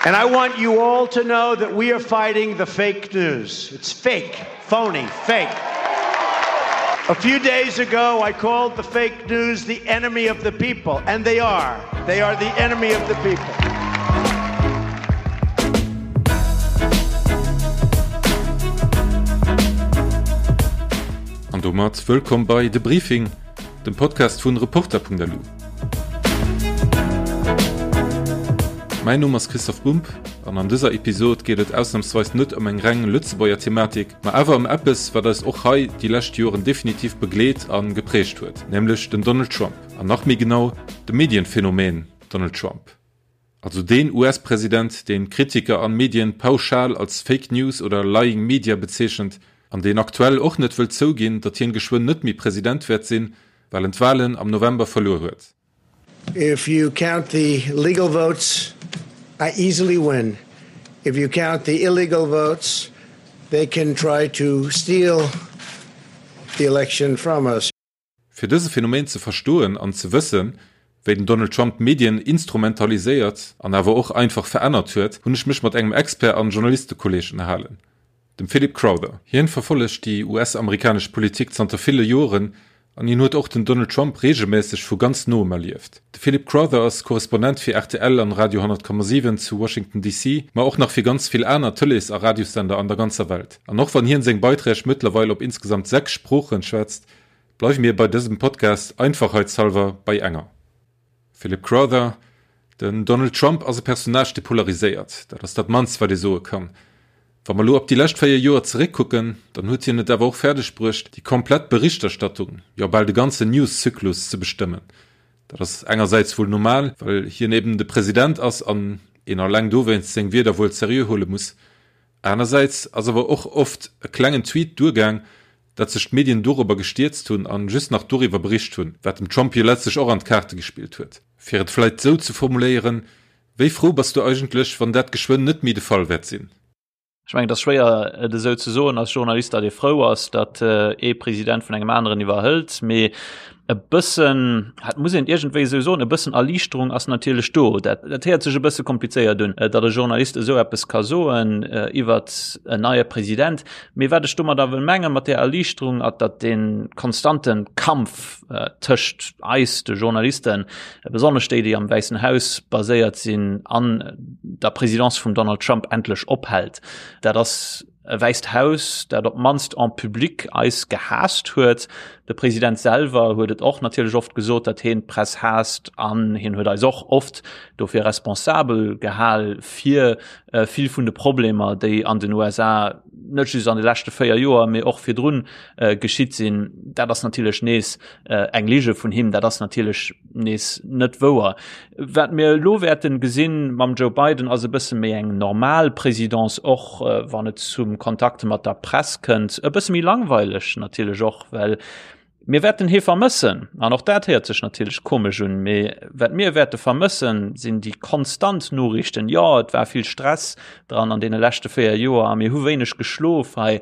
And I want you all to know that we are fighting the fake news. It's fake, phony, fake. A few days ago, I called the fake news the enemy of the people, and they are. They are the enemy of the people. An domat wëllkomm bei De Briefing, dem Podcast vun Reporter.lu. Mäin Numm ass Christoph Bumb an an dëser Episod geet et ausnamsweis net ëm eng reng Lëtzebuerger Thematik, ma awer ëm eppes, wat eis och hei déi lescht Joren definitiv begleet a geprägt huet, nämlech den Donald Trump. An nach méi genau, de Medienphänomen Donald Trump. Also deen US-President, deen Kritiker an Medien pauschal als Fake News oder Lying Media bezeechent an deen aktuell och net wëllt zouginn, datt hien geschwënn net méi President wäert sinn, well en d'Wahlen am November verluer huet. If you count the legal votes, I easily win. If you count the illegal votes, they can try to steal the election from us. Fir dëse Phänomen ze verstoen an ze wëssen, wéi den Donald Trump d'Medien instrumentaliséiert an awer och einfach verännert huet, hunn ech mech mat engem Expert an Journalistekolleeg ënnerhalen, dem Philip Crowther. Hien verfollegt déi US-amerikanesch Politik zanter ville Joren an hien huet och den Donald Trump reegelmässeg vu ganz noem erlieft. De Philip Crowther ass Korrespondent fir rtl an Radio 100,7 zu Washington DC, ma och nach fir ganz vill aner Tëlees a Radiossender an der ganzer Welt. An och wann hien seng Beiträg mëttlerweil op insgesamt 6 Sproochen schwätzt, Bleiwe mir bei dësem Podcast einfachheitshalber bei enger. Philip Crowther, Den Donald Trump ass e Personnage, dee polariséiert. Dat ass dat mannst, wat ee soe kann. Wa mer elo op déi lescht 4 Joer zeréckkucken, dann huet hien et awer och fäerdeg bruecht, déi komplett Berichterstattung, jo bal de ganzen News-Zyklus ze bestëmmen. Dat ass engersäits wuel normal, well hien eben de President ass an een alleng dowéinst seng Wierder wuel seriö huele muss. Anersäits ass awer och oft e klengen Tweet duergaang, datt sech d'Medien dorobber gestierzt hunn an just nach doriwwer bericht hunn, wat dem Trump jo letztlech och an d'Kaarte gespillt huet. Fir et vläit sou ze formuléieren, Wéi frou bass du eigentlech, wann dat geschwënn net méi de Fall wäert sinn? Ech mengen, et ass schwéier et esou ze soen als Journalist, datt ee frou ass, datt ee President vun engem aneren iwwerhëlt, mee e bëssen, dat muss een iergendwéi esou soen, e bëssen Erliichterung ass natierlech do. Dat, dat héiert sech e bësse komplizéiert un, datt e Journalist esou eppes ka soen iwwert en neie President. Mee wat ech domadder wëll mengen, mat där Erliichterung, ass, datt dee konstante Kampf tëscht eis, de Journalisten, besonnesch déi, déi am Wäissen Haus baséiert sinn, an der Présidence vum Donald Trump endlech ophält. Dat ass e Wäisst Haus, dat op d'mannst en public eis gehaasst huet. De President selwer huet et och natierlech oft gesot, datt hien d'Press haasst an hien huet eis och oft dofir responsabel gehal fir vill vun de Problemer, déi an den USA net just an de leschte 4 Joer, mee och virdrun geschitt sinn. Dat ass natierlech nees eng Lige vun him, dat ass natierlech nees net wouer. Wat mir elo wäerten gesinn mam Joe Biden ass e bësse méi eng normal Présidence, och wann et zum Kontakt mat der Press kënnt, e bësse méi langweileg natierlech och, well mir wäerten hie vermëssen. An och dat héiert sech natierlech komesch un, mee wat mir wäerte vermëssen, sinn déi konstant Noriichten. Jo, et war vill Stress dran an deene leschte 4 Joer a mir hu wéineg geschlof hei.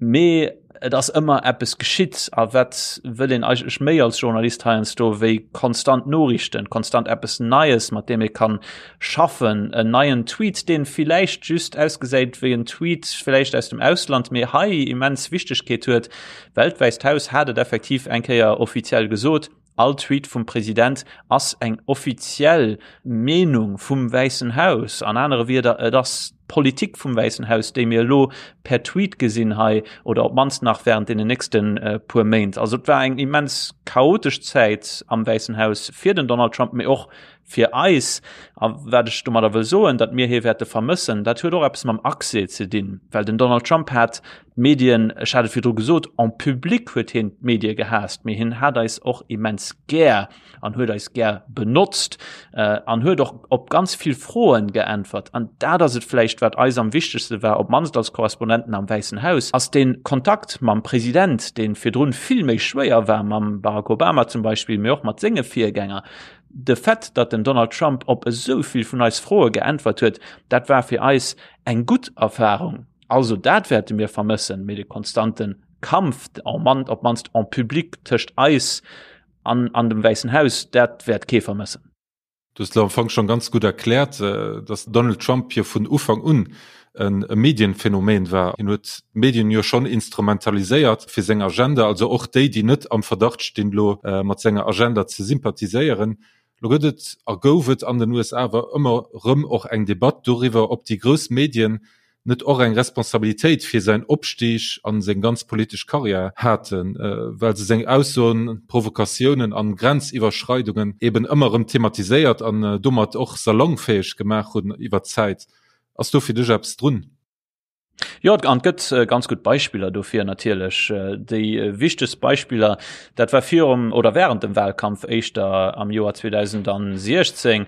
Mee et ass ëmmer eppes geschitt. A wat wëll een eigentlech méi als Journalist heiansdo wéi konstant Noriichten, konstant eppes Neies, mat deem ee kann schaffen, en neien Tweet, deen villäicht just ausgesäit wéi en Tweet villäicht aus dem Ausland, mee hei immens Wichtegkeet huet, well d'Wäisst Haus hat et effektiv eng Kéier offiziell gesot, All Tweet vum President ass eng offiziell Meenung vum Wäissen Haus. An anere Wierder, et ass d'Politik vum Wäissen Haus, déi mir elo per Tweet gesinn hei, oder op d'mannst nach während deenen nächste puer Méint. Also et war eng immens chaotesch Zäit am Wäissen Haus fir den Donald Trump, mee och fir eis. A wat ech domadder wëll soen, datt mir hie wäerte vermëssen, dat huet och eppes mam Accès ze dinn, well den Donald Trump hat d'Medien, ech hat et virdru gesot, en public huet hien d'Medie gehaasst, mee hien hat eis och immens gär an huet eis gär benotzt an huet och op ganz vill Froen geäntwert. An dat ass et vläicht, wat eis am wichtegste war, op d'mannst als Korrespondenten am Wäissen Haus, ass dee Kontakt mam President, dee virdrun vill méi schwéier war, mam Barack Obama zum Beispill, mee och mat senge Virgänger. De Fait, datt den Donald Trump op esou vill vun eis Froe geäntwert huet, dat war fir eis eng gutt Erfarung. Also dat wäerte mir vermëssen, mee de konstante Kampf, op d'mannst en public, tëscht eis an an dem Wäissen Haus, dat wäert kee vermëssen. Du hues elo am Fong schonn ganz gutt erkläert, dass Donald Trump jo vun Ufank un e Medienphänomen war. Hien huet d'Medien jo schonn instrumentaliséiert fir seng Agenda, also och déi, déi net am Verdacht stinn, elo mat senger Agenda ze sympathiséieren. Lo gëtt et a gouf et an den USA awer ëmmer rëm och eng Debatt doriwwer, ob déi grouss Medien net och eng Responsabilitéit fir säin Opstig an seng ganz politesch Karriär haten, well se seng Aussoen, Provokatiounen an Grenziwwerschreidungen eben ëmmer rëm thematiséiert an domat och salongfäeg gemaach hunn iwwer d'Zäit. Ass do fir dech eppes drun? Jo, an et gëtt ganz gutt Beispiller dofir natierlech. Déi wichtegst Beispiller, dat war virum oder während dem Wahlkampf éischter am Joer 2016,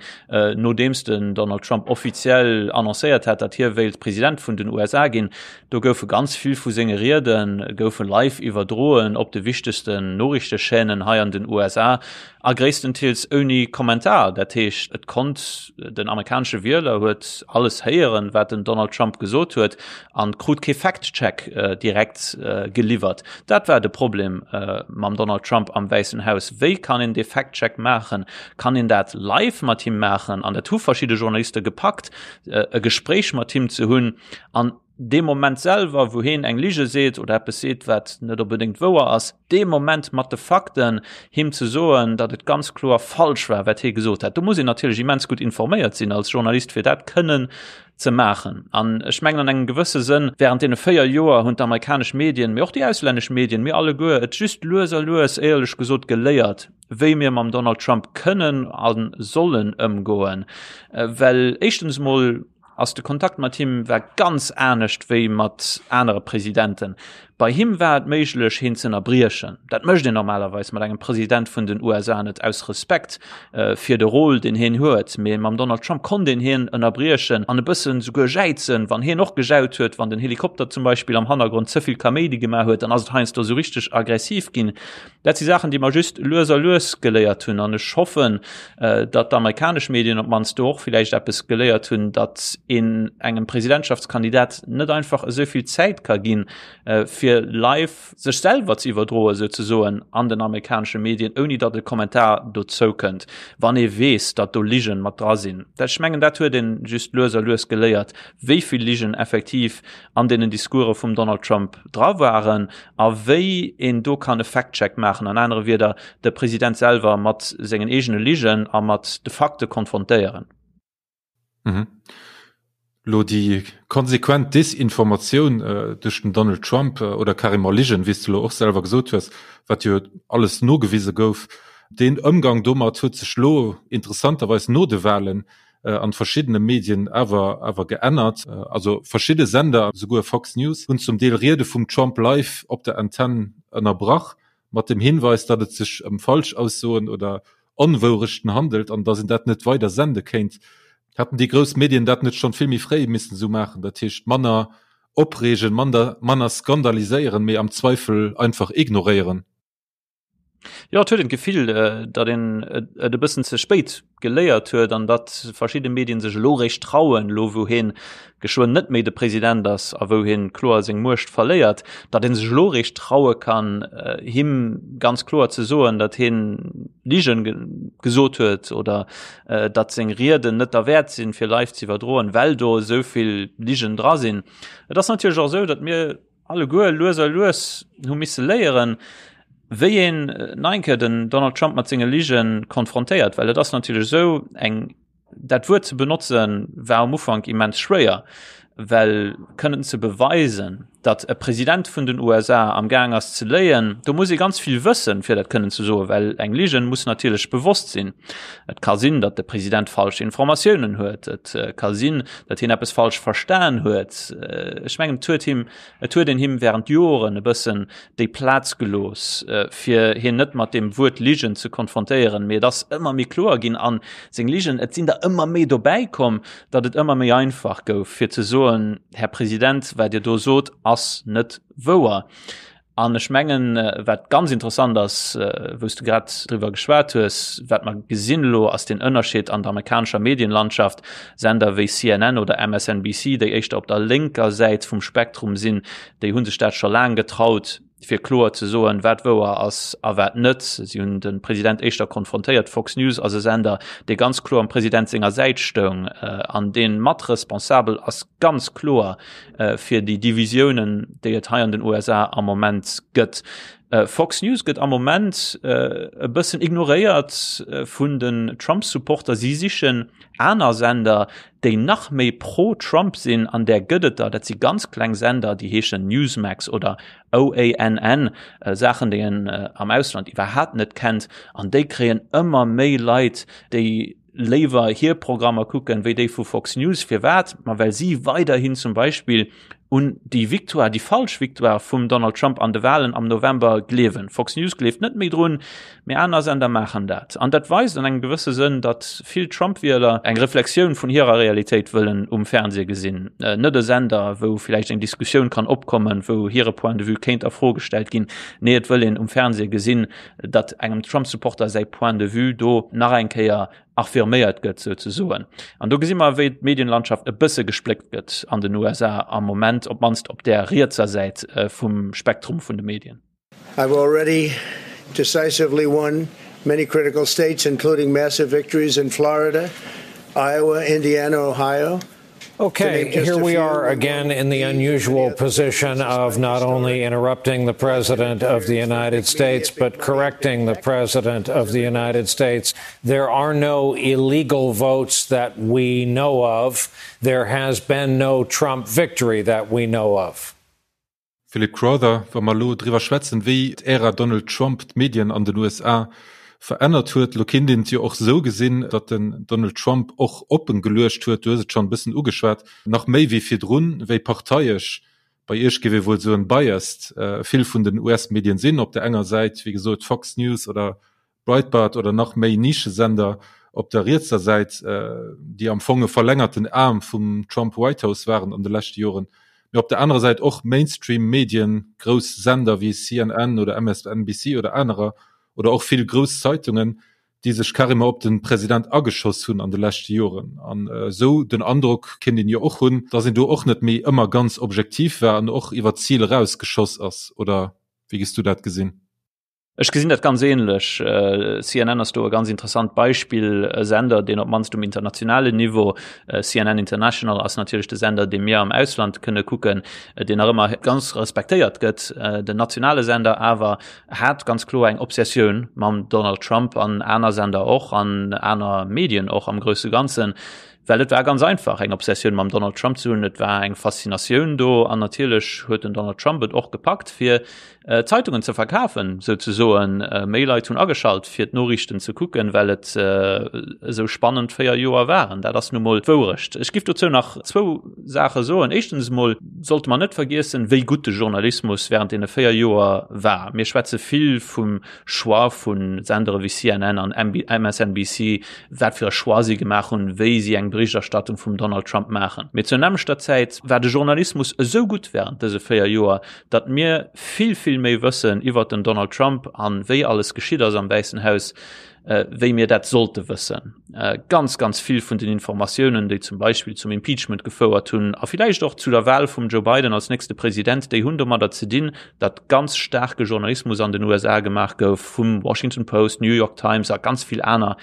Nodeems den Donald Trump offiziell annoncéiert hat, datt hie wéilt President vun den USA ginn, do goufe ganz vill vu senge Riede goufe live iwwerdroen op de wichtegsten Noriichtechaînen hei an den USA a gréisstenteels ouni Kommentar. Dat heescht, et konnt den amerikanesche Wieler huet alles héieren, wat den Donald Trump gesot huet an krut kee Fact-Check direkt geliwwert. Dat war de Problem mam Donald Trump am Wäissen Haus. Wéi kann een dee Fact-Check maachen? Kann een dat live mat him maachen? An dat hu verschidde Journaliste gepackt, e Gespréich mat him ze hunn an dee Moment selwer, wou heen eng Lige seet oder eppes seet, wat net onbedéngt wouer ass, dee Moment mat de Fakten him ze soen, datt et ganz kloer falsch war, wat hie gesot hat. Do muss een natierlech immens gutt informéiert sinn als Journalist, fir dat kënnen ze maachen. An ech mengen an engem gewësse Sënn, während deene 4 Joer hunn d'amerikanesch Medien, mee och déi auslännesch Medien, mir alleguer et just lues a lues, éierlech gesot, geléiert, wéi mir mam Donald Trump kënnen a sollen ëmgoen. Well éischtens emol ass de Kontakt mat him war ganz anescht wéi mat anere Presidenten. Bei him war et méiglech, hien ze ënnerbriechen. Dat mécht een normalerweis mat engem President vun den USA net, aus Respekt fir de Rôle, deen hien huet. Mee mam Donald Trump konnt een hien ënnerbriechen an e bëssen souguer jäizen, wann hien och gejaut huet, wann den Helikopter zum Beispill am Hannergrond ze vill Kaméidi gemaach huet, dann ass et heiansdo esou richteg aggressiv ginn. Dat si Saachen, déi mer just lues a lues geléiert hunn. An ech hoffen, datt d'amerikanesch Medien op d'mannst do och villäicht eppes geléiert hunn, datt een engem Presidentschaftskandidat net einfach esou vill Zäit ka ginn, fir live sech selwer ze iwwerdroen, souzesoen, an den amerikanesche Medien, ouni datt e Kommentar dozou kënnt, wann ee weess, datt do Ligen mat dra sinn. Dat, ech mengen, dat huet ee just lues a lues geléiert, wéi vill Ligen effektiv an deenen Discourse vum Donald Trump dra waren a wéi een do kann e Fact-Check maachen, an anere Wierder, de President selwer mat sengen eegene Ligen a mat de Fakte konfrontéieren. Mhm. Lo déi konsequent Desinformatioun äh, duerch den Donald Trump äh, oder carrément Ligen, wéi s du lo och selwer gesot hues, wat jo alles nogewise gouf, deen Ëmgang domat huet sech lo interessanterweis no de Wahlen äh, an verschiddene Medien awer awer geännert. Äh, also verschidde Sender, souguer Fox News, hunn zum Deel Riede vum Trump live op der Antenn ënnerbrach, mat dem Hinweis, datt et sech ëm Falschaussoen oder Onwourechten handelt an datt een dat net weider sende kéint. Hätten déi grouss Medien dat net schonn vill méi fréi missen esou maachen, dat heescht manner opreegen, mander manner skandaliséieren, mee am Zweifel einfach ignoréieren? Jo, et huet een d'Gefill, datt een et e bëssen ze spéit geléiert huet an datt verschidde Medien sech elo réischt trauen, elo wou hien geschwënn net méi de President ass a wou hien kloer seng Muecht verléiert, datt een sech elo réischt traue kann, him ganz kloer ze soen, datt hien Ligen gesot huet oder datt seng Rieden net derwäert sinn, fir live ze iwwerdroen, well do esou vill Ligen dra sinn. Et ass natierlech och esou, datt mir alleguer lues a lues hu misse léieren, wéi een nach eng Kéier den Donald Trump mat senge Lige konfrontéiert, well et ass natierlech esou, eng, dat Wuert ze benotzen, war am Ufank immens schwéier, well kënnen ze beweisen, datt e President vun den USA am Gaang ass ze léien, do muss ee ganz vill wëssen, fir dat kënnen ze soen, well eng Ligen muss natierlech bewosst sinn. Et ka sinn, datt de President falsch Informatiounen huet, et ka sinn, datt hien eppes falsch verstan huet. Ech mengen, et huet him, et huet een him während Joren e bëssen déi Plaz gelooss, fir hien net mat deem Wuert Ligen ze konfrontéieren. Mee et ass ëmmer méi kloer ginn an seng Ligen, et sinn der ëmmer méi dobäi komm, datt et ëmmer méi einfach gouf, fir ze soen, Här President, wat Dir do sot, ass net wouer. An ech mengen, wat ganz interessant ass, wou s de grad driwwer geschwat hues, wat mer gesinn elo, ass den Ënnerscheed an der amerikanescher Medienlandschaft. Sender wéi CNN oder MSNBC, déi éischter op der lénker Säit vum Spektrum sinn, déi hu sech dat scho laang getraut. fir kloer ze soen, wat wouer ass a wat net. Si hunn de President éischter konfrontéiert. Fox News ass e Sender, dee ganz kloer am President senger Säit stoung an dee mat responsabel ass, ganz kloer fir déi Divisiounen, déi et hei an den USA am Moment gëtt. Fox News gëtt am Moment e bëssen ignoréiert vun den Trump-Supporter. Si sichen aner Sender, déi nach méi pro-Trump sinn, an där gëtt et der. Dat si ganz kleng Sender, déi heeschen Newsmax oder OANN, Saachen, déi een am Ausland iwwerhaapt net kennt. An déi kréien ëmmer méi Leit, déi léiwer hir Programmer kucken, wéi déi vu Fox News. Firwat? Ma well si weiderhin zum Beispill un déi Victoire, déi falsch Victoire vum Donald Trump an de Wahlen am November gleewen. Fox News gleeft net méi drun, mee aner Sender maachen dat. An dat weist an engem gewësse Sënn, datt vill Trump-Wieler eng Reflexioun vun hirer Realitéit wëllen um Fernseh gesinn. Net e Sender, wou villäicht eng Diskussioun kann opkommen, wou hire Point de vue kéint a Fro gestallt ginn. Nee, et wëll een um Fernseh gesinn, datt engem Trump-Supporter säi Point de vue do nach eng Kéier affirméiert gëtt souzesoen. An do gesi mer, wéi d'Medienlandschaft e bësse gespléckt gëtt an den USA am Moment, op d'mannst op där rietser Säit vum Spektrum vun de Medien. I've already decisively won many critical states, including massive victories in Florida, Iowa, Indiana, Ohio. Okay, here we are again in the unusual position of not only interrupting the President of the United States, but correcting the President of the United States. There are no illegal votes that we know of. There has been no Trump victory that we know of. Philip Crowther, Wa mer elo driwwer schwätzen, wéi d'Ära Donald Trump d'Medien an den USA verännert huet, elo kinnt een et jo och esou gesinn, datt den Donald Trump och oppen geluecht huet, du hues et schonn e bëssen ugeschwat, nach méi wéi virdrun, wéi parteiesch, bei Iech géif ee wuel soen biased, vill vun den US-Medien sinn. Op der enger Säit, wéi gesot, Fox News oder Breitbart oder nach méi Nischesender op der rietser Säit, déi am Fong e verlängerten Aarm vum Trump White House waren an de leschte Joren, mee op der anerer Säit och Mainstream-Medien, grouss Sender wéi CNN oder MSNBC oder anerer oder och vill grouss Zeitungen, déi sech carrément op de President ageschoss hunn an de leschte Joren. An esou den Androck kéint een jo och hunn, datt een do och net méi ëmmer ganz objektiv war an och iwwer d'Zil erausgeschoss ass, oder wéi gess du dat gesinn? Ech gesinn dat ganz ähnlech. CNN ass do e ganz interessant Beispill, e Sender, deen op d'mannst um internationalen Niveau, CNN International ass natierlech de Sender, dee mir am Ausland kënne kucken, deen nach ëmmer ganz respektéiert gëtt. Den nationale Sender awer hat ganz kloer eng Obsessioun mam Donald Trump an aner Sender och an aner Medien och am grousse Ganzen. Well et war ganz einfach eng Obsessioun mam Donald Trump ze hunn, et war eng Faszinatioun do an natierlech huet den Donald Trump et och gepackt fir Zeitungen ze verkafen souzesoen. Méi Leit hunn ageschalt fir d'Noriichten ze kucken, well et esou spannend 4 Joer waren. Dat ass nu mol d'Wourecht. Ech giff dozou nach zwou Saache soen. Éischtens emol sollte mer net vergiessen, wéi gutt de Journalismus während deene 4 Joer war. Mir schwätze vill vum Choix vu Sendere wéi CNN an MSNBC, wat fir e Choix si gemaach hunn, wéi si eng Berichterstattung vum Donald Trump maachen. Mee zur nämmlechter Zäit war de Journalismus esou gutt während dëse 4 Joer, datt mir vill, vill méi wëssen iwwert den Donald Trump an wéi alles geschitt ass am Wäissen Haus, wéi mir dat sollte wëssen. Ganz, ganz vill vun den Informatiounen, déi zum Beispill zum Impeachment gefouert hunn a villäicht och zu der Wahl vum Joe Biden als nächste President, déi hunn domadder ze dinn, datt ganz staarke Journalismus an den USA gemaach gouf vum Washington Post, New York Times a ganz vill aner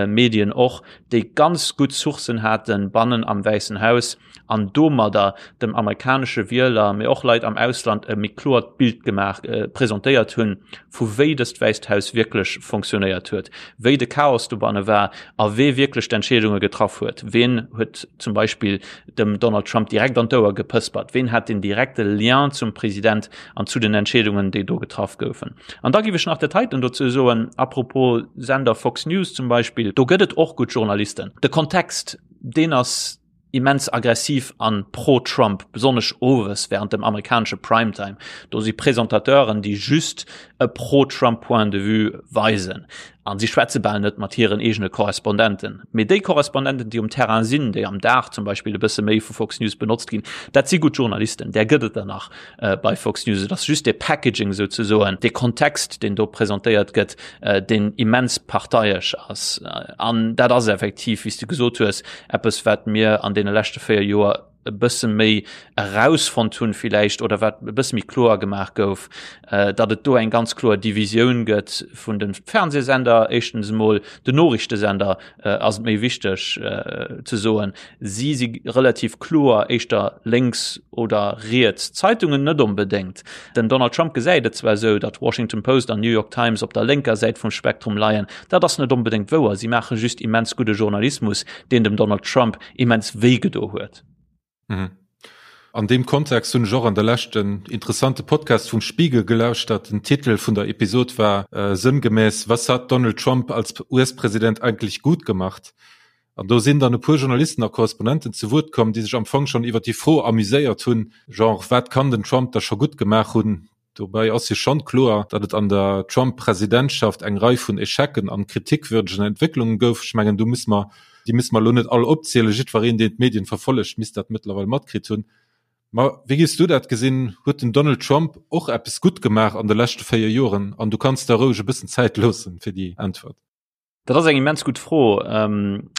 Medien och, déi ganz gutt Sourcen haten bannen am Wäissen Haus an domadder dem amerikanesche Wieler, mee och Leit am Ausland e méi kloert Bild gemaach, presentéiert hunn, vu wéi dëst Wäisst Haus wierklech fonctionnéiert huet, wéi de Chaos dobanne war a wee wierklech d'Entscheedunge getraff huet. Ween huet zum Beispill dem Donald Trump direkt an d'Ouer gepëspert? Ween hat den direkte Lien zum President an zu den Entscheedungen, déi do getraff goufen? An da géif ech nach dat heiten dozou soen, à propos Sender Fox News zum Beispill, do gëtt et och gutt Journalisten. De Kontext, deen ass immens aggressiv an pro-Trump, besonnesch owes während dem amerikanesche Primetime. Do si Presentateuren, déi just e pro-Trump Point de vue weisen. An si schwätze bal net mat hiren eegene Korrespondenten. Mee déi Korrespondenten, déi um Terrain sinn, déi am Dag zum Beispill e bësse méi vu Fox News benotzt ginn, dat si gutt Journalisten. Där gëtt et der nach bei Fox News. Et ass just dee Packaging souzesoen, dee Kontext, deen do presentéiert gëtt, deen immens parteiesch ass. An dat ass effektiv, wéi s de gesot hues, eppes, wat mir an deene leschte 4 Joer. e bësse méi erausfonnt hunn villäicht oder wat e bësse méi kloer gemaach gouf, datt et do eng ganz kloer Divisioun gëtt vun de Fernsehsender, éischtens emol den Noriichtesender ass et méi wichteg ze soen, si si relativ kloer éischter lénks oder riets, d'Zeitungen net onbedéngt. Den Donald Trump gesäit et zwar esou, datt Washington Post an New York Times op der lénker Säit vum Spektrum leien, dat ass net onbedéngt wouer, si maache just immens gudde Journalismus, deen dem Donald Trump immens wéi gedo huet. Mhm. An deem Kontext hunn ech och an der Lescht en interessante Podcast vum Spiegel gelauschtert. Den Titel vun der Episod war äh, sënngemäss Was hat Donald Trump als US-Präsident eigentlich gut gemacht? An do sinn dann e puer Journalisten a Korrespondenten zu Wuert komm, déi sech am Fong schonn iwwer déi Fro amuséiert hunn, genre wat kann den Trump da scho gutt gemaach hunn? Dobäi ass jo schonn kloer, datt et an der Trump-Presidentschaft eng Rei vun Echecen an kritikwürdegen Entwécklungen gouf. Ech mengen, do musse mer, déi musse mer elo net all opzielen. Jiddwereen, deen d'Medien verfollegt, misst dat mëttlerweil matkritt hunn. Ma wéi géifs du dat gesinn? Huet den Donald Trump och eppes gutt gemaach an de leschte 4 Joren? An du kanns der roueg e bëssen Zäit loossen fir déi Äntwert. Dat ass eng immens gutt Fro. Ähm,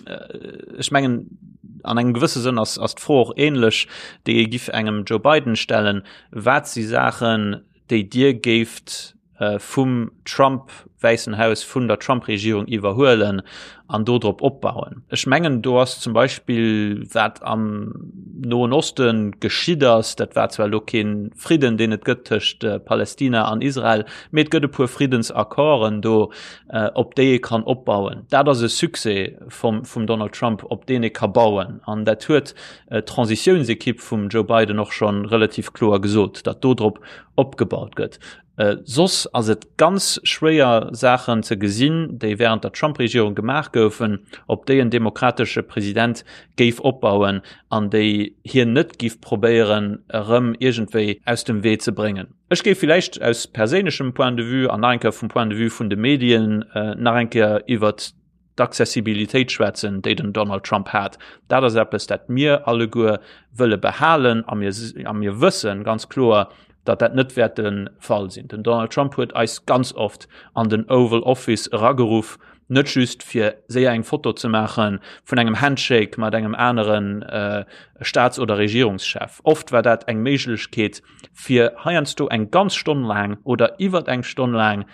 ech mengen an engem gewësse Sënn ass, ass d'Fro och ähnlech, déi ee giff engem Joe Biden stellen. Wat si Saachen, déi Dir géift äh, vum Trump Wäissen Haus, vun der Trump-Regierung iwwerhuelen an do drop opbauen? Ech mengen, do ass zum Beispill wat am Noen Osten geschitt ass, dat war zwar elo kee Fridden, deen et gëtt tëscht äh, Palästina an Israel, mee et gëtt e puer Friddensaccorden do, äh, op déi ee kann opbauen. Dat ass e Succès vum, vum Donald Trump, op deen ee ka bauen. An dat huet äh, d'Transitiounsekipp vum Joe Biden och schon relativ kloer gesot, datt do drop opgebaut gëtt. Äh, soss ass et ganz schwéier Saachen ze gesinn, déi während der Trump-Regierung gemaach goufen, op déi en demokratesche President géif opbauen an déi hien net giff probéieren erëm iergendwéi aus dem Wee ze bréngen. Ech géif villäicht aus perséinlechem Point de vue an nach eng Kéier vum Point de vue vun de Medien nach eng Kéier iwwert d'Accessibilitéit schwätzen, déi den Donald Trump hat. Dat ass eppes, dat mir alleguer wëlle behalen a mir, a mir wësse ganz kloer, datt dat net wäert de Fall sinn. Den Donald Trump huet eis ganz oft an den Oval Office erageruff, net just fir séier eng Foto ze maache vun engem Handshake mat engem anere Staats oder Regierungschef. Oft war dat eng Méiglechkeet, fir heiansdo eng ganz Stonn laang oder iwwert eng Stonn laang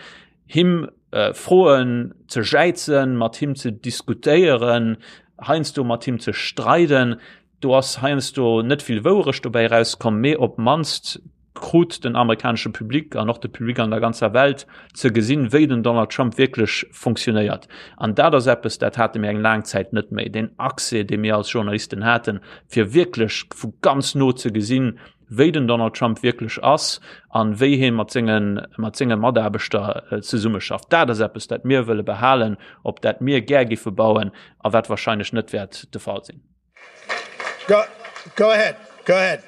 him äh, Froen ze jäizen, mat him ze diskutéieren, heiansdo mat him ze streiden. Do ass heiansdo net vill Wouerecht dobäi rauskomm, mee op mannst krut den amerikanesche Public an och de Public an der ganzer Welt ze gesinn, wéi den Donald Trump wierklech funktionéiert. An dat ass eppes, dat hate mir eng laang Zäit net méi, deen Accès, dee mir als Journalisten haten, fir wierklech vu ganz no ze gesinn, wéi den Donald Trump wierklech ass an wéi hie mat sengen, mat senge Mataarbechter äh, zesummeschafft. Dat ass eppes, dat mir wëlle behalen, op dat mir gär giffe bauen a wat wahrscheinlech net wäert de Fall sinn. Go, go ahead, go ahead.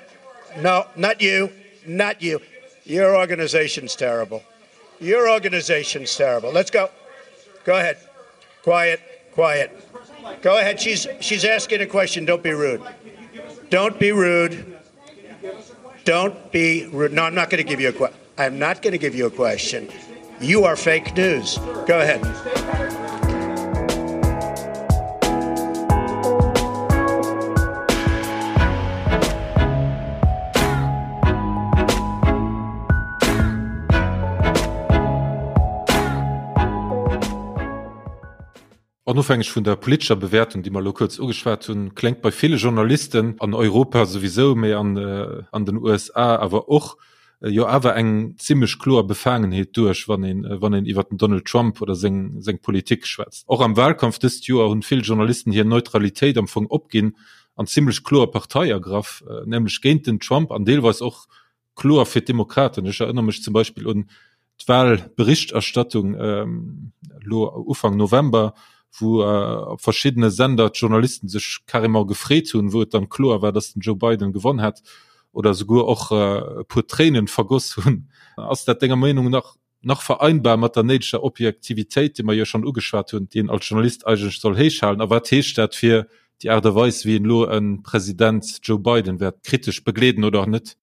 No, not you, not you. Your organization's terrible. Your organization's terrible. Let's go. Go ahead. Quiet, quiet. Go ahead. She's she's asking a question. Don't be rude. Don't be rude. Don't be rude. No, I'm not going to give you a question. I'm not going to give you a question. You are fake news. Go ahead. Onofhängeg vun der politescher Bewäertung, déi mer elo kuerz ugeschwat hunn, kléngt bei ville Journalisten, an Europa souwisou, mee an an den USA awer och, jo awer eng zimmlech kloer Befaangenheet duerch, wann een wann een iwwer den Donald Trump oder seng seng Politik schwätzt. Och am Wahlkampf dëst Joer hunn vill Journalisten hir Neutralitéit am Fong opginn an zimmlech kloer Partei ergraff, nämlech géint den Trump an deelweis och kloer fir d'Demokraten. Ech erënnere mech zum Beispill un d'Wahlberichterstattung elo Ufank November, wou op verschiddene Sender d'Journalisten sech carrément gefreet hunn, wou et dann kloer war, datt den Joe Biden gewonn hätt, oder souguer och e puer Tréinen vergoss hunn. Ass dat denger Meenung nach nach vereinbar mat der néideger Objektivitéit, déi mer jo schonn ugeschwat hunn, déi een als Journalist eigentlech soll héichhalen? A wat heescht dat fir déi Aart a Weis, wéi een elo e President Joe Biden wäert kritesch begleeden oder net?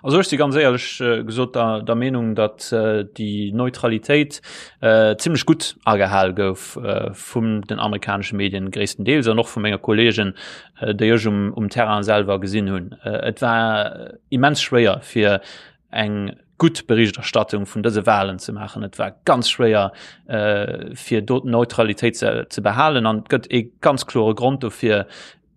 Also ech si ganz éierlech gesot der, der Meenung, datt déi Neutralitéit äh, zimmlech gutt agehal gouf äh, vum den amerikanesche Medien gréisstendeels an och vu menge Kolleegen, äh, déi ech um, um Terrain selwer gesinn hunn. Äh, et war immens schwéier fir eng gutt Berichterstattung vun dëse Wahlen ze maachen. Et war ganz schwéier äh, fir do d'Neutralitéit ze, ze behalen an et gëtt ee ganz klore Grond dofir,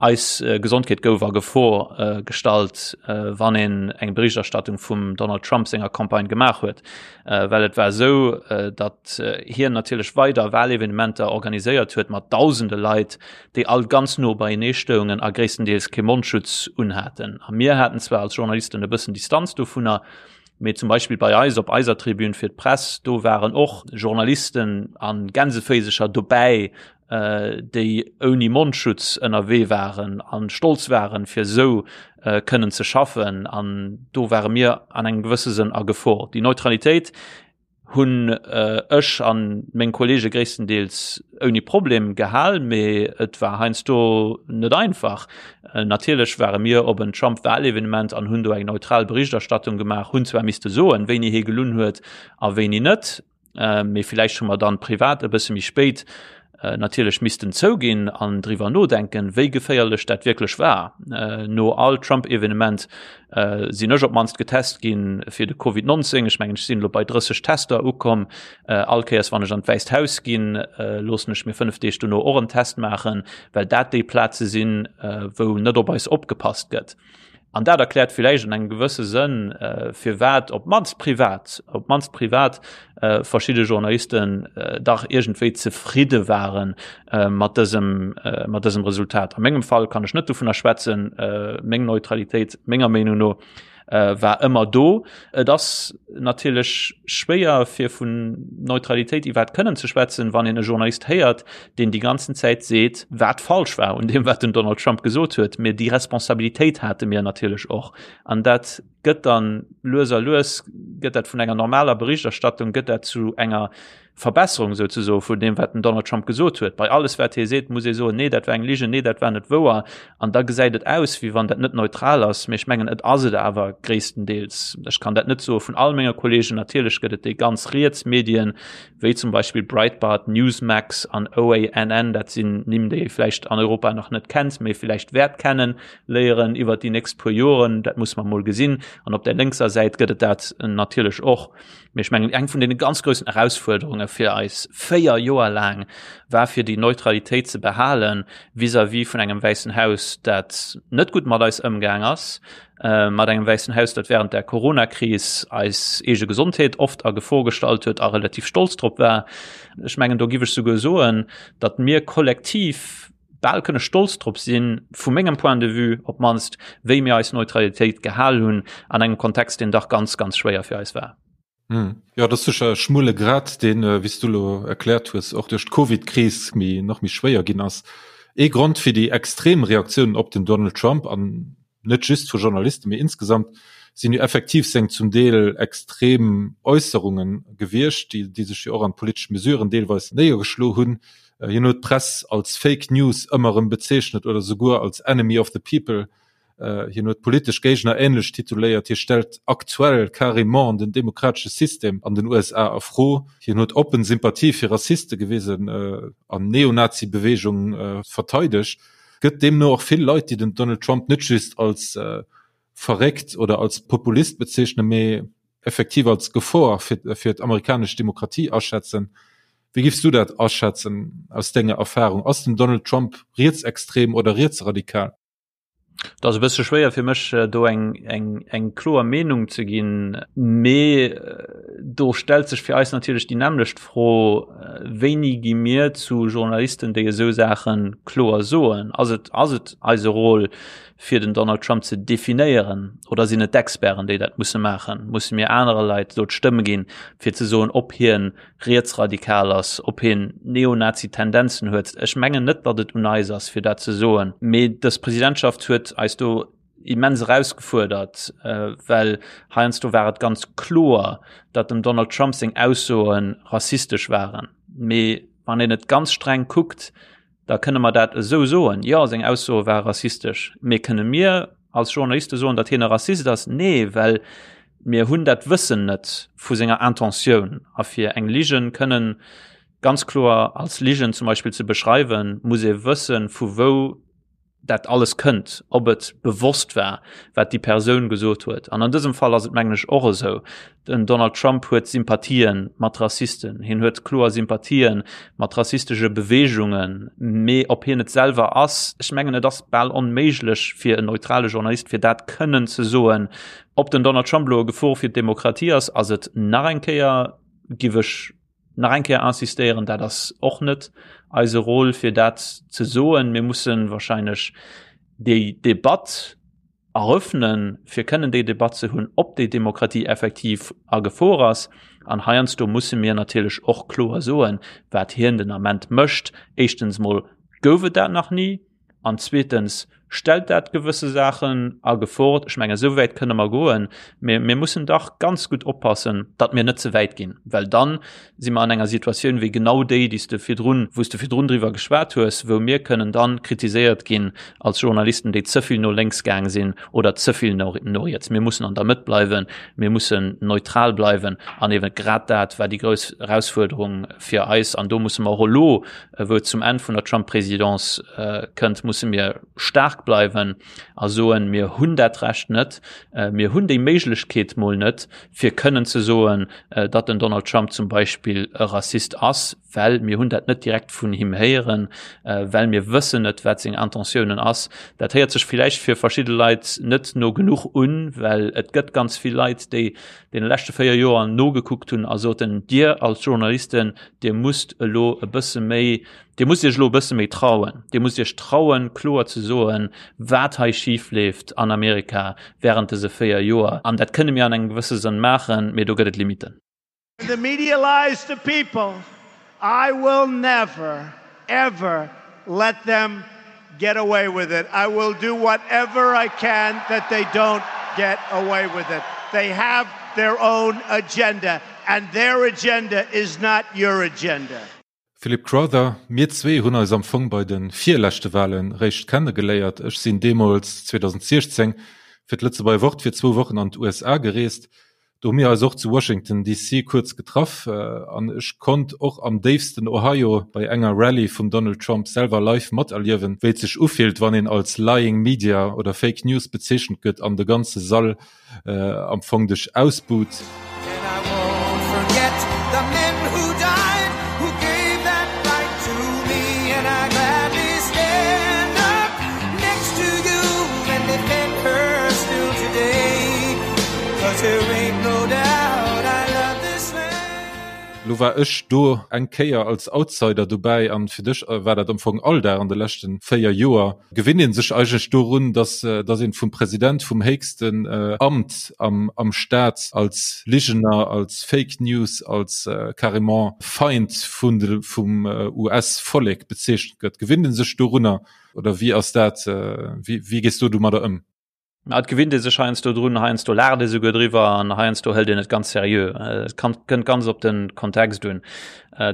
Eis Gesondheet gouf a Gefor gestallt, wann een eng Berichterstattung vum Donald Trump senger Campagne gemaach huet, well et war esou, datt hien natierlech weider Wahlevenementer organiséiert huet mat dausende Leit, déi all ganz no beienee stoungen a gréisstendeels kee Mondschutz unhaten. A mir haten zwar als Journalisten e bëssen Distanz dovunner, mee zum Beispill bei eis op eiser Tribün fir d'Press, do waren och Journalisten a Gänseféisecher dobäi, déi ouni Mondschutz ënnerwee waren an stolz waren, fir esou kënnen ze schaffen. An do ware mir an engem gewësse Sënn a Gefor. Déi Neutralitéit hunn ech an meng Kollege gréisstendeels ouni Problem gehal, mee et war heiansdo net einfach. Natierlech ware mir op en Trump-Wahlevenement an hunn do eng neutral Berichterstattung gemaach, hunn zwar misste soen, wéini hie gelunn huet a wéini net, Mee villäicht hu mer dann privat e bësse méi spéit natierlech missten zouginn an driwwer nodenken, wéi geféierlech dat wierklech war. No all Trump-Evenement sinn ech op d'mannst getest ginn fir de Covid 19. Ech mengen, ech sinn elo bei 30 Tester ukomm. All Kéiers, wann ech an d'Wäisst Haus ginn, loossen ech mir 5 Deeg dono och en Test maachen, well dat déi Plaze sinn, wou net op eis opgepasst gëtt. An dat erkläert villäicht an engem gewësse Sënn, firwat op d'mannst privat, op d'mannst privat verschidde Journalisten dach iergendwéi zefridde ware mat dësem, mat dësem Resultat. A mengem Fall kann ech net dovunner schwätzen. Meng Neutralitéit, menger Meenung no, war ëmmer do. Et ass natierlech schwéier fir vun Neutralitéit iwwerhaapt kënnen ze schwätzen, wann een e Journalist héiert, deen déi ganzen Zäit seet, wat falsch war un deem, wat den Donald Trump gesot huet. Mee déi Responsabilitéit hate mir natierlech och. An dat gëtt dann lues a lues gëtt dat vun enger normaler Berichterstattung gëtt dat zu enger Verbesserung souzesoe vun deem, wat den Donald Trump gesot huet. Bei alles, wat hie seet, muss ee soen, nee, dat war eng Ligen, nee, dat war net wouer. An da gesäit et aus, wéi wann dat net neutral ass. Mee ech mengen, et ass et awer gréisstendeels. Ech kann dat net soe vun all menge Kollegen. Natierlech gëtt et déi ganz riets Medien, wéi zum Beispill Breitbart, Newsmax an OANN. Dat sinn Nimm, déi ee vläicht an Europa nach net kennt, mee vläicht wäert kennen léieren iwwert déi nächst puer Joren. Dat muss mer mol gesinn. An op der lénkser Säit gëtt et dat natierlech och. Mee ech mengen, eng vun deene ganz groussen Erausfuerderunge fir eis 4 Joer laang war, fir déi Neutralitéit ze behale vis-à-vis vun engem Wäissen Haus, dat net gutt mat eis ëmgaang ass, mat engem Wäissen Haus, dat während der Coronakris eis eege Gesondheet oft a Gefor gestallt huet a relativ stolz drop war. Ech mengen, do giff ech souguer soen, datt mir kollektiv, bal kënne stolz drop sinn, vu mengem Point de vue op d'mannst, wéi mir eis Neutralitéit gehal hunn an engem Kontext, deen dach ganz, ganz schwéier fir eis war. Jo, dat ass sécher e schmuele Grad, deen, wéi s du elo erkläert hues, och duerch d'Covidkris méi, nach méi schwéier ginn ass. Ee Grond fir déi extrem Reaktiounen op den Donald Trump, an net just vu Journalisten, mee insgesamt, sinn jo effektiv seng zum Deel extrem Äusserunge gewiescht, déi, déi sech jo och an politesch Mesuren deelweis néiergeschlo hunn. Hien huet d'Press als Fake News ëmmer erëm bezeechnet oder souguer als Enemy of the People. Hien huet politesch Géigner änlech tituléiert. Hie stellt aktuell carrément den demokratesche System an den USA a Fro. Hien huet oppen Sympathie fir Rassiste gewisen an Neonazi-Beweegung verteidegt. Gëtt deemno och vill Leit, déi den Donald Trump net just als verréckt oder als Populist bezeechnen, mee effektiv als Gefor fir fir d'amerikanesch Demokratie aschätzen. Wéi giffs du dat aschätzen aus denger Erfahrung? Ass den Donald Trump rietsextrem oder rietsradikal? Et ass e bësse schwéier fir mech do eng eng eng kloer Meenung ze ginn, mee do stellt sech fir eis natierlech déi nämmlecht Fro, Wéini gi mir zu Journalisten, déi esou Saache kloer soen? Ass et ass et eise Rôle, fir den Donald Trump ze definéieren oder sinn et d'Experten, déi dat musse maachen? Musse mir anere Leit do d'Stëmm ginn, fir ze soen, ob hien rietsradikal ass, ob hien Neonazi-Tendenzen huet? Ech mengen net, datt et un eis ass, fir dat ze soen. Mee dës Presidentschaft huet eis do immens erausgefuerdert, well heiansdo war et ganz kloer, datt dem Donald Trump seng Aussoe rassistesch waren. Mee wann een et ganz streng kuckt, Da kënne mer dat esou soen, Jo, seng Aussoe ware rassistesch. Mee kënne mir. als Journaliste soen, datt hien e Rassist ass? Nee, well mir hunn dat Wëssen net vu senger Intentioun. A fir eng Ligen kënnen ganz kloer als Ligen zum Beispill ze beschreiwen, muss ee wëssen, vu wou dat alles kënnt, ob et bewosst war, wat déi Persoun gesot huet. An an dësem Fall ass et mengen ech och esou. Den Donald Trump huet Sympathie mat Rassisten, hien huet kloer Sympathie mat rassistesche Beweegungen, mee ob hien et selwer ass, ech mengen et ass bal onméiglech fir en neutrale Journalist fir dat kënnen ze soen. Ob den Donald Trump elo e Gefor fir d'Demokratie ass, ass et nach eng Kéier, giff ech nach eng Kéier insistéieren, dat ass och net eise Rôle fir dat ze soen. Mir mussen wahrscheinlech déi Debatt eröffnen, fir kënnen déi Debatt ze hunn, ob déi Demokratie effektiv a Gefor ass. An heiansdo musse mir natierlech och kloer soen, wat hien den Ament mécht. Éischtens mol gouf et dat nach ni. An zweetens stellt dat gewësse Saachen a Gefor. Ech mengen, esou wäit kënne mer goen, mä mir mussen dach ganz gutt oppassen, datt mir net ze wäit ginn, well dann si mer an enger Situatioun wéi genau déi, déi s de virdrun, wou s de virdrun driwwer geschwat hues, wou mir kënnen dann kritiséiert ginn als Journalisten, déi ze vill no lénks gaang sinn oder ze vill no no riets. Mir mussen an der Mëtt bleiwen, mir mussen neutral bleiwen an eeben grad dat war déi grouss Erausfuerderung fir eis an do musse mer och elo, wou et zum Enn vun der Trump-Présidence kënnt, musse mir staark bleiwen a soen, mir hunn dat Recht net, mir hunn déi Méiglechkeet mol net, fir kënnen ze soen, datt den Donald Trump zum Beispill e Rassist ass, well mir hunn dat net direkt vun him héieren, well mir wëssen net, wat seng Intentiounen ass. Dat héiert sech villäicht fir verschidde Leit net no genuch un, well et gëtt ganz vill Leit, déi deene leschte 4 Joer nogekuckt hunn a soten, Dir als Journalisten, Dir musst elo e bësse méi, Dir musst Iech elo e bësse méi trauen, Dir musst Iech trauen, kloer ze soen, wat hei schif leeft an Amerika während dëse 4 Joer. An dat kënne mir an engem gewësse Sënn maachen, mee do gëtt et Limiten. When the media lies to people, I will never, ever let them get away with it. I will do whatever I can that they don't get away with it. They have their own agenda and their agenda is not your agenda. Philip Crowther, Mir zwee hunn eis am Fong bei de virleschte Wahlen réischt kennegeléiert. Ech sinn deemools, 2016, fir d'Lëtzebuerger Wort fir zwou Wochen an d'USA gereest. Do hu mir eis och zu Washington DC kuerz getraff an ech konnt och am déifsten Ohio bei enger Rallye vum Donald Trump selwer live materliewen, wéi et sech ufillt, wann een als Lying Media oder Fake News bezeechent gëtt an de ganze Sall am Fong dech ausbuht. Lo war ech do eng Kéier als Outsider dobäi an fir dech war dat am Fong Alldag an de leschten 4 Joer. Gewinnt een sech eigentlech dorun, dass dass een vum President vum héchsten Amt am am Staat als Ligener, als Fake News, als carrément Feind vun de vum US Vollek bezeechent gëtt? Gewinnt een sech dorunner oder wéi ass dat, wéi wéi gees du domadder ëm? Ma et gewinnt ee sech heiansdo drun, heiansdo laacht ee souguer driwwer an heiansdo hëlt een et ganz seriö. Et kann, kënnt ganz op de Kontext un.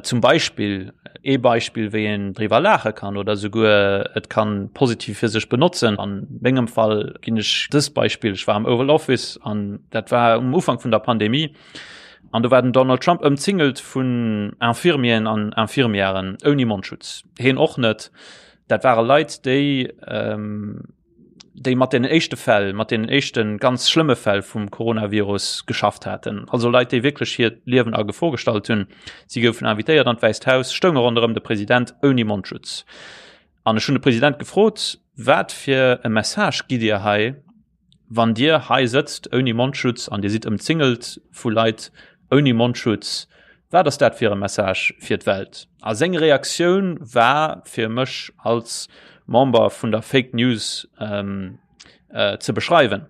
Zum Beispill, ee Beispill, wéi een driwwer laache kann oder souguer et kann positiv fir sech benotzen. An mengem Fall ginn ech dëst Beispill, Ech war am Oval Office an dat war um Ufank vun der Pandemie an do war den Donald Trump ëmzingelt vun Infirmieren an Infirmièren ouni Mondschutz. Heen och net. Dat ware Leit, déi déi mat den éischte Fäll, mat den éischte ganz schlëmme Fäll vum Coronavirus geschafft haten. Also Leit, déi wierklech hiert Liewen a Gefor gestallt hunn. Si goufen invitéiert an d'Wäisst Haus, stounge ronderëm de President ouni Mondschutz. An ech hunn de President gefrot, Wat fir e Message gitt Dir hei, wann Dir hei sëtzt ouni Mondschutz an Dir sidd ëmzingelt vu Leit ouni Mondschutz? Wat ass dat fir e Message fir d'Welt? A seng Reaktioun war fir mech als Member vun der Fake News ze beschreiwen.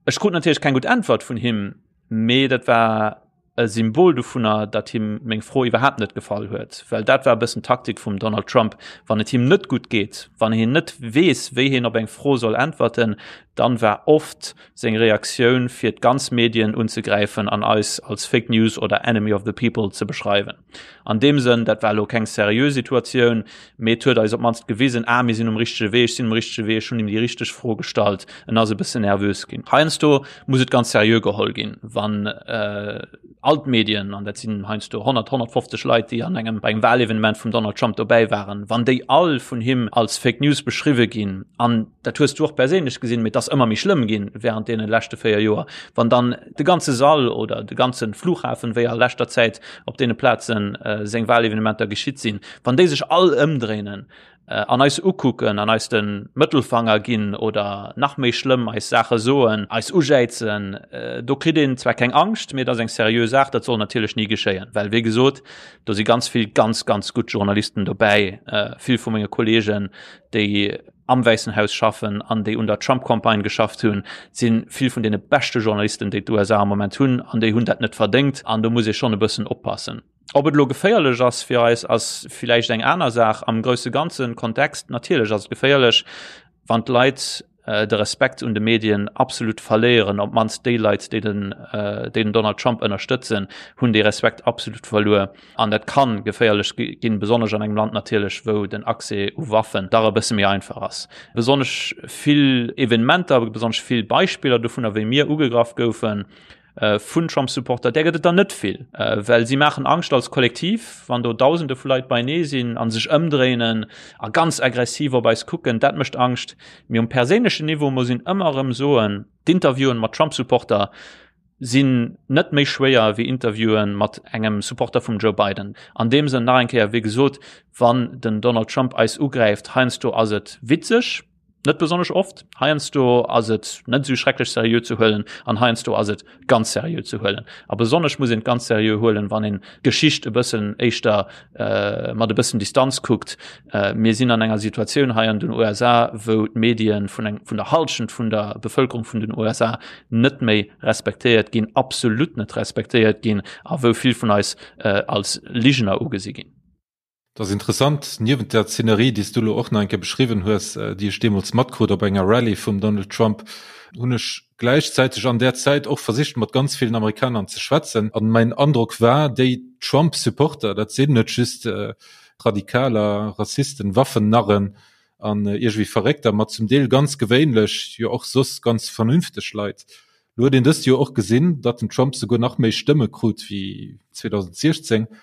Ech krut natierlech keng gutt Äntwert vun him, mee dat war. E Symbol dovunner, datt him meng Fro iwwerhaapt net gefall huet, well dat war e bëssen d'Taktik vum Donald Trump, wann et him net gutt geet, wann hien net weess, wéi hien op eng Fro soll äntwerten, dann war oft seng Reaktioun fir d'ganz Medien unzegräifen an eis als Fake News oder Enemy of the People ze beschreiwen. An deem Sënn, dat war elo keng seriö Situatioun, mee et huet eis op d'mannst gewisen, ah, mir sinn um richtege Wee, ech sinn um richtege Wee, ech hunn him déi richteg Fro gestallt. En ass e bëssen nervös ginn. Heiansdo muss et ganz seriö geholl ginn, wann äh, all d'Medien, an dat sinn heiansdo 100, 150 Leit, déi an engem bei engem Wahlevenement vum Donald Trump dobäi waren, wann déi all vun him als Fake News beschriwwe ginn, an dat hues du och perséinlech gesinn, mee et ass ëmmer méi schlëmm ginn während deene leschte 4 Joer, wann dann de ganze Sall oder de ganze Flughafen, wéi a leschter Zäit op deene Plazen äh, seng Wahlevenementer geschitt sinn, wann déi sech all ëmdréinen, an eis ukucken an eis de Mëttelfanger ginn oder nach méi schlëmm eis Saache soen, eis ujäizen, do kritt een zwar keng Angscht, mee et ass eng seriö Saach. Dat soll natierlech ni geschéien, well wéi gesot, do si ganz vill ganz, ganz gutt Journalisten dobäi, vill vu menge Kolleegen, déi am Wäissen Haus schaffen an déi un der Trump-Campagne geschafft hunn, si vill vun deene beschte Journalisten, déi d'USA am Moment hunn an déi hunn dat net verdéngt an do muss ee schonn e bëssen oppassen. Ob et elo geféierlech ass fir eis, ass villäicht eng aner Saach. Am grousse ganze Kontext natierlech ass et geféierlech, wann d'Leit de Respekt un de Medien absolut verléieren. Op d'mannst déi Leit, déi den, déi den Donald Trump ënnerstëtzen, hunn dee Respekt absolut verluer. An dat ka geféierlech ginn, besonnesch an engem Land natierlech, wou den Accès u Waffen dach e bësse méi einfach ass. Besonnesch vill Evenementer, besonnesch vill Beispiller dovunner, wéi mir ugegraff goufen, vun Trump-Supporter, där gëtt et der net vill, well si maachen Angscht als Kollektiv, wann do Dausende vu Leit beienee sinn a sech ëmdréinen a ganz aggressiv op eis kucken, dat mécht Angscht. Mee um perséinlechen Niveau muss een ëmmer erëm soen, d'Interviewen mat Trump-Supporter sinn net méi schwéier wéi Interviewen mat engem Supporter vum Joe Biden. An deem Sënn nach eng Kéier, wéi gesot, wann den Donald Trump eis ugräift, heiansdo ass et witzeg, Net besonnesch oft. Heiansdo ass et net esou schrecklech seriö ze huelen an heiansdo ass et ganz seriö ze huelen. A besonnesch muss een et ganz seriö huelen, wann een d'Geschicht e bëssen éischter äh, mat e bëssen Distanz kuckt. Äh, mir sinn an enger Situatioun hei an den USA, wou d'Medien vun eng, vun der Halschent vun der Bevëlkerung vun den USA net méi respektéiert ginn, absolut net respektéiert ginn a wou vill vun eis äh, als Ligener ugesi ginn. Et ass interessant, niewent der Szenerie, déi s du elo och nach eng Kéier beschriwwen hues, déi ech deemools matkrut op enger Rallye vum Donald Trump, hunn ech gläichzäiteg an där Zäit och versicht, mat ganz villen Amerikanern ze schwätzen. An mäin Androck war, déi Trump-Supporter, dat sinn net just Radikaler, Rassisten, Waffennarren an iergendwéi Verréckter, ma zum Deel ganz gewéinlech, jo och soss ganz vernünfteg Leit. Lo huet een dëst Joer och gesinn, datt den Trump souguer nach méi Stëmme krut wéi 2016. Et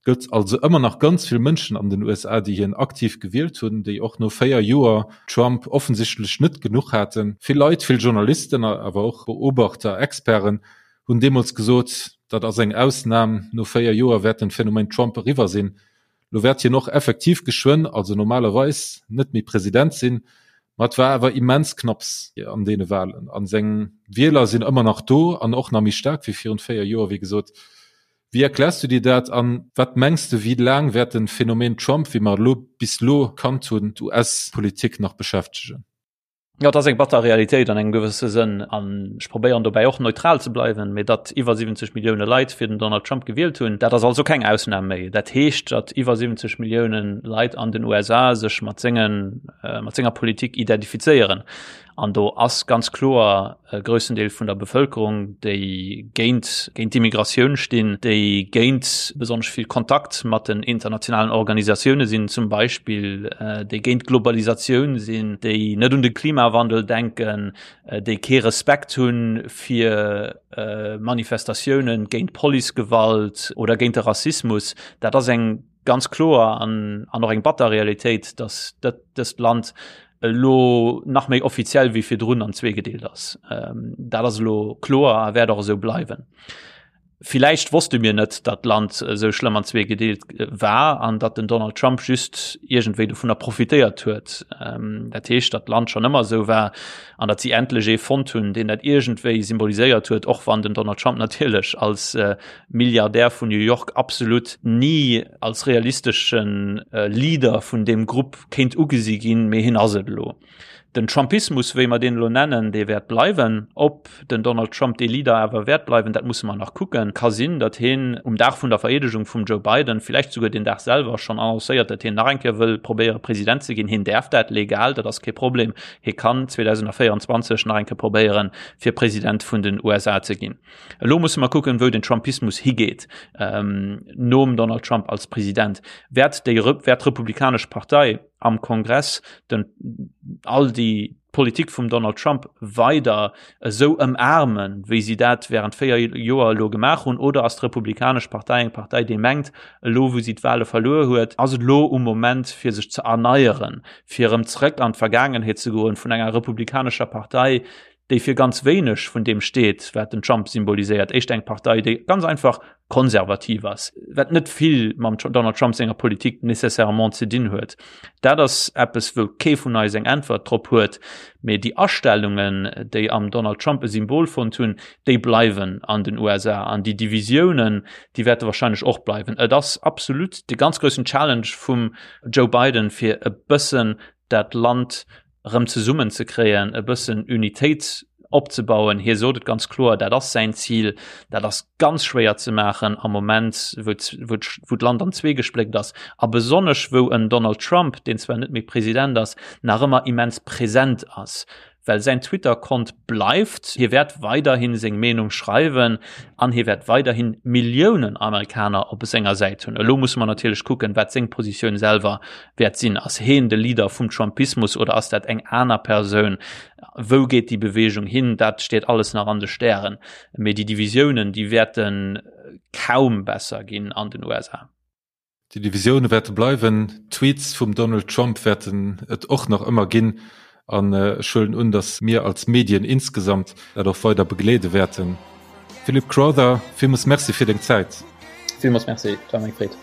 gëtt also ëmmer nach ganz vill Mënschen an den USA, déi hien aktiv gewielt hunn, déi och no 4 Joer Trump offensichtlech net genuch haten. Vill Leit, vill Journalisten, awer och Beobachter, Experten hunn deemools gesot, dat ass eng Ausnam, no 4 Joer wäert den Phänomen Trump eriwwer sinn. Lo wäert hien och effektiv geschwënn, also normalerweis, net méi President sinn. Ma et war awer immens knapps an deene Walen a seng Wieler sinn ëmmer nach do an och nach méi staark wéi virun 4 Joer, wéi gesot. Wéi erkläers du dir dat an wat mengs de, wéi laang wäert den Phänomen Trump, wéi mer elo bis elo kannt hunn, d'US-Politik nach beschäftegen? Jo, et ass eng batter Realitéit an engem gewësse Sënn an ech probéieren dobäi och neutral ze bleiwen, mee datt iwwer 70 Millioune Leit fir den Donald Trump gewielt hunn, dat ass also keng Ausnam méi. Dat heescht, datt iwwer 70 Millioune Leit an den USA sech mat sengen, mat senger Politik identifizéieren. An do ass ganz kloer e groussen Deel vun der Bevëlkerung, déi géint géint d'Immigratioun stinn, déi géint besonnesch vill Kontakt mat den internationalen Organisatioune sinn zum Beispill, déi géint d'Globalisatioun sinn, déi net un de Klimawandel denken, déi kee Respekt hu fir Manifestatioune géint Policegewalt oder géint de Rassismus. Dat ass eng ganz kloer an an och eng batter Realitéit, datt dat dëst Land elo nach méi offiziell wéi virdrun an zweegedeelt ass. Ähm, dat ass elo kloer a wäert och esou bleiwen. Villäicht wosste mir net, datt d'Land esou schlëmm an zweegedeelt äh, war an datt den Donald Trump just iergendwéi dovunner profitéiert huet. Ähm, dat heescht, datt d'Land schonn ëmmer esou war an datt si endlech ee fonnt hunn, deen dat iergendwéi symboliséiert huet, och wann den Donald Trump natierlech als äh, Milliardär vun New York absolut ni als realisteschen Leader vun deem Grupp kéint ugesi ginn, mee hien ass et elo. Den Trumpismus, wéi mer deen elo nennen, dee wäert bleiwen. Ob den Donald Trump dee Leader awer wäert bleiwen, dat musse mer nach kucken. Ka sinn, datt hien um Dag vun der Vereedegung vum Joe Biden, villäicht souguer deen Dag selwer, schonn annoncéiert, datt hien nach eng Kéier wëll probéiere President ze ginn. Hien däerf dat legal, dat ass kee Problem. Hie kann 2024 nach eng Kéier probéieren, fir President vun den USA ze ginn. Elo musse mer kucken, wou den Trumpismus higeet nom Donald Trump als President. Wäert déi, wäert d'Republikanesch Partei am Kongress den, all déi Politik vum Donald Trump weider esou ëmaarmen, wéi si dat während 4 Joer elo gemaach hunn, oder ass d'Republikanesch Partei eng Partei, déi mengt, elo wou si d'Wahle verluer huet, ass et elo um Moment fir sech ze erneieren, fir erëm zrëck an d'Vergaangenheet ze goen vun enger republikanescher Partei, déi fir ganz wéineg vun deem steet, wat den Trump symboliséiert, éischter eng Partei, déi ganz einfach konservativ ass, wat net vill mam Donald Trump senger Politik nécessairement ze dinn huet. Dat ass eppes, wou kee vun eis eng Äntwert drop huet, mee déi Astellungen, déi am Donald Trump e Symbol fonnt hunn, déi bleiwen an den USA an déi Divisiounen, déi wäerte wahrscheinlech och bleiwen. Et ass absolut de ganz groussen Challenge vum Joe Biden, fir e bëssen dat Land erëm zesummen ze kréien, e bëssen Unitéit opzebauen. Hie sot et ganz kloer, dat ass säin Zil. Dat ass ganz schwéier ze maachen am Moment, wou wou d'Land an zwee gespléckt ass a besonnesch wou en Donald Trump, deen zwar net méi President ass, nach ëmmer immens present ass. Well säin Twitter-Kont bleift, hie wäert weiderhi seng Meenung schreiwen an hie wäert weiderhi Milliounen Amerikaner op senger Säit hunn. Elo musse mer natierlech kucken, wat seng Positioun selwer wäert sinn. Ass heen de Leader vum Trumpismus oder ass dat eng aner Persoun? Wou geet déi Beweegung hin? Dat steet alles nach an de Stären. Mee déi Divisiounen, déi wäerte kaum besser ginn an den USA. Déi Divisioune wäerte bleiwen. D'Tweets vum Donald Trump wäerten et och nach ëmmer ginn. An ech huelen un, datt mir als Medien insgesamt dat och weider begleede wäerten. Philip Crowther, villmools Merci fir deng Zäit. Villmools Merci, et war mir eng Freed.